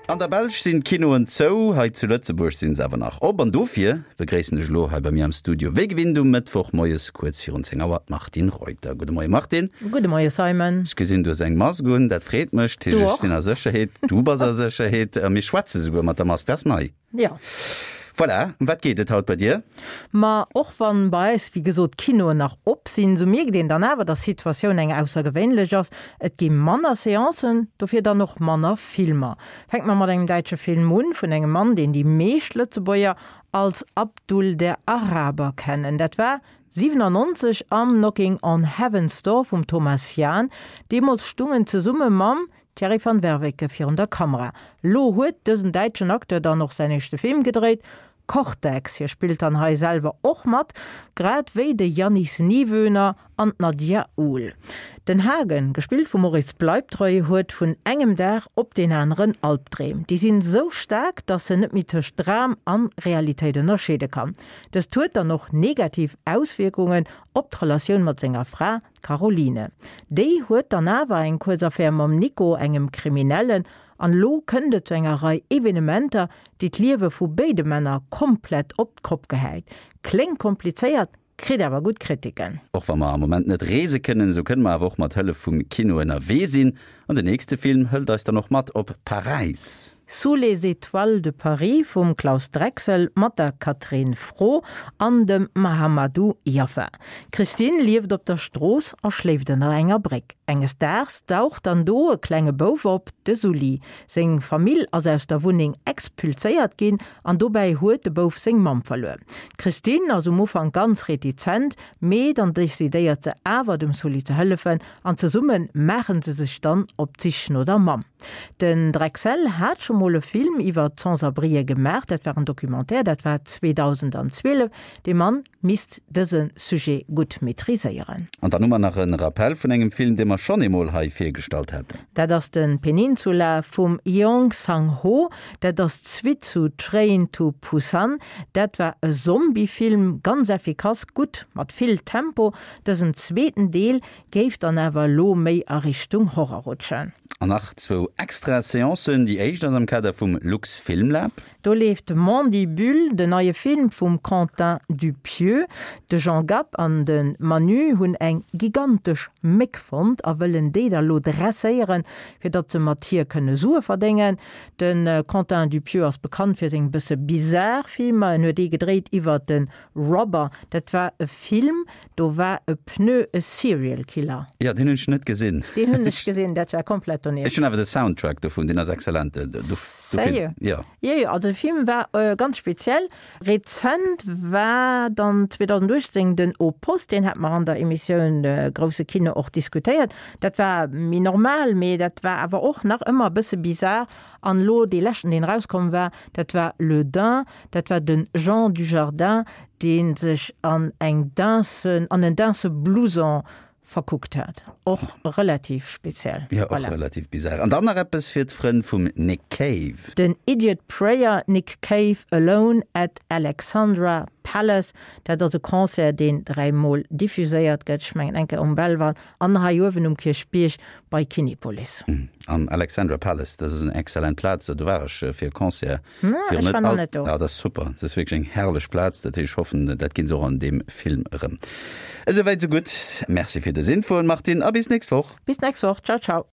An der Belsch sinn d'Kinoen zou, hei zu Lëtzebuerg sinn se awer nach op. An dofir begréissen ech elo hei bei mir am Studio, wéi gewinnt um Mëttwoch moies kuerz virun 10 Auer, d'Martine Reuter. Gudde Moie Martine. Gudde Moie Simon. Ech gesinn, du hues eng Mask un, dat freet mech. Du och. Ech sinn a Sécherheet, du bass a Sécherheet a mir schwätze souguer mat der Mask, dat ass nei. Jo. Voilà, ëm wat geet et haut bei dir? Ma och wann bei eis, wéi gesot, d'Kinoen nach op sinn, sou mierkt een dann awer, dass d'Situatioun eng aussergewéinlech ass. Et gi manner Seancen, dofir dann och manner Filmer. Fänke mer mat engem däitsche Film un, vun engem Mann, deen déi meescht Lëtzebuerger als Abdul der Araber kennen. Dat war 97 am Knocking on Heaven's Door vum Thomas Jahn. Deemools stung en zesumme mam Thierry van Werveke virun der Kamera. Lo huet dësen däitschen Acteur dann och säin éischte Film gedréit, Cortex. Hie spillt dann hei selwer och mat, grad wéi de Yannis Niewöhner an d'Nadia Uhl. Den Hagen, gespillt vum Moritz Bleibtreu, huet vun engem Dag op deen aneren Albdreem. Déi sinn esou staark, dass en net méi tëscht Dram an Realitéit ënnerscheede kann. Dëst huet dann och negativ Auswierkungen op d'Relatioun mat senger Fra, D'Caroline. Déi huet dann awer eng kuerz Affär mam Nico, engem Kriminellen, an elo kënnt et zu enger Rei Evenementer, déi d'Liewe vu béide Männer komplett op d'Kopp gehäit. Kléngt komplizéiert, kritt awer gutt Kritiken. Och wa mer am Moment net reese kënnen, esou kënne mer awer och mat Hëllef vum Kino ënnerwee sinn. An den nächste Film hëlt eis dann och mat op Paräis. Sous les étoiles de Paris vum Claus Drexel mat der Catherine Frot an dem Mahamadou Yaffa. D'Christine lieft op der Strooss a schléift ënner enger Bréck. Enges Daags daucht dann do e klenge Bouf op, de Sully. Seng Famill ass aus der Wunneng expulséiert ginn an dobäi huet de Bouf seng Mamm verluer. D'Christine ass um Ufank ganz retizent, mee dann decidéiert se awer dem Sully ze hëllefen an zesumme maachen se sech dann op d'Sich no der Mamm. Den Drexel hat scho mol e Film iwwer d'Sans-abrien gemaach, dat war en Documentaire, dat war 2012. Dee Mann misst dëse Sujet gutt maîtriséieren. An dann hu mer nach e Rappel vun engem Film, dee mer schonn eemol hei virgestallt haten. Dat ass de Peninsula vum Yeong Sang-ho. Dat ass d'Suite zu Train to Busan. Dat war e Zombie-Film, ganz effikass, gutt, mat vill Tempo. Dësen zweeten Deel Géif dann awer elo méi a Richtung Horror rutschen. An nach zwou extra Seancen. Déi éischt ass am Kader vum Luxfilmlab. Do leeft Mandibule, den neie Film vum Quentin Dupieux. De Jean Gab an de Manu hunn eng gigantesch Méck fonnt a wëllen déi da lo dresséieren, fir datt se mat hir kënne Sue verdéngen. De Quentin Dupieux ass bekannt fir seng bësse bizar Filmer. En huet ee gedréit iwwer de Robber, dat war e Film, Do war e Pneu e Serial Killer. Jo, deen hunn ech net gesinn. Deen hunn ech gesinn, dat war komplett donieft. Ech hunn awer de Soundtrack dovun, deen ass excellent. Sérieux? Jo. Jo, jo, also de Film war ganz speziell. Rezent war dann 2018 den Au Poste, deen hate mer an der Emissioun Grousse Kino och diskutéiert. Dat war méi normal, mee dat war awer och nach ëmmer e bësse bizar. An elo dee leschten, deen erauskomm war, dat war Le Dain, dat war de Jean Dujardin, dee sech an eng Dainsen, an en Dainse-Blouson verkuckt hat. Och relativ speziell. Jo, och relativ bizar. An dann nach eppes fir d'Frënn vum Nick Cave. Den Idiot Prayer, Nick Cave Alone at Alexandra Palace, dat ass e Concert, deen dräimol diffuséiert gëtt, ech mengen eng Kéier um Belval an hei uewen um Kierchbierg bei Kinepolis. Am Alexandra Palace, dat ass en excellent Plaz, do war ech fir e Concert. Ech war nach net do. Ah, dat ass super, dat ass wierklech eng herrlech Plaz, dat heescht, ech hoffen, dat ginn se och an deem Film erëm. Esouwäit esou gutt, Merci fir dës Infoen, Martine, a bis nächst Woch. Bis nächst Woch, ciao ciao.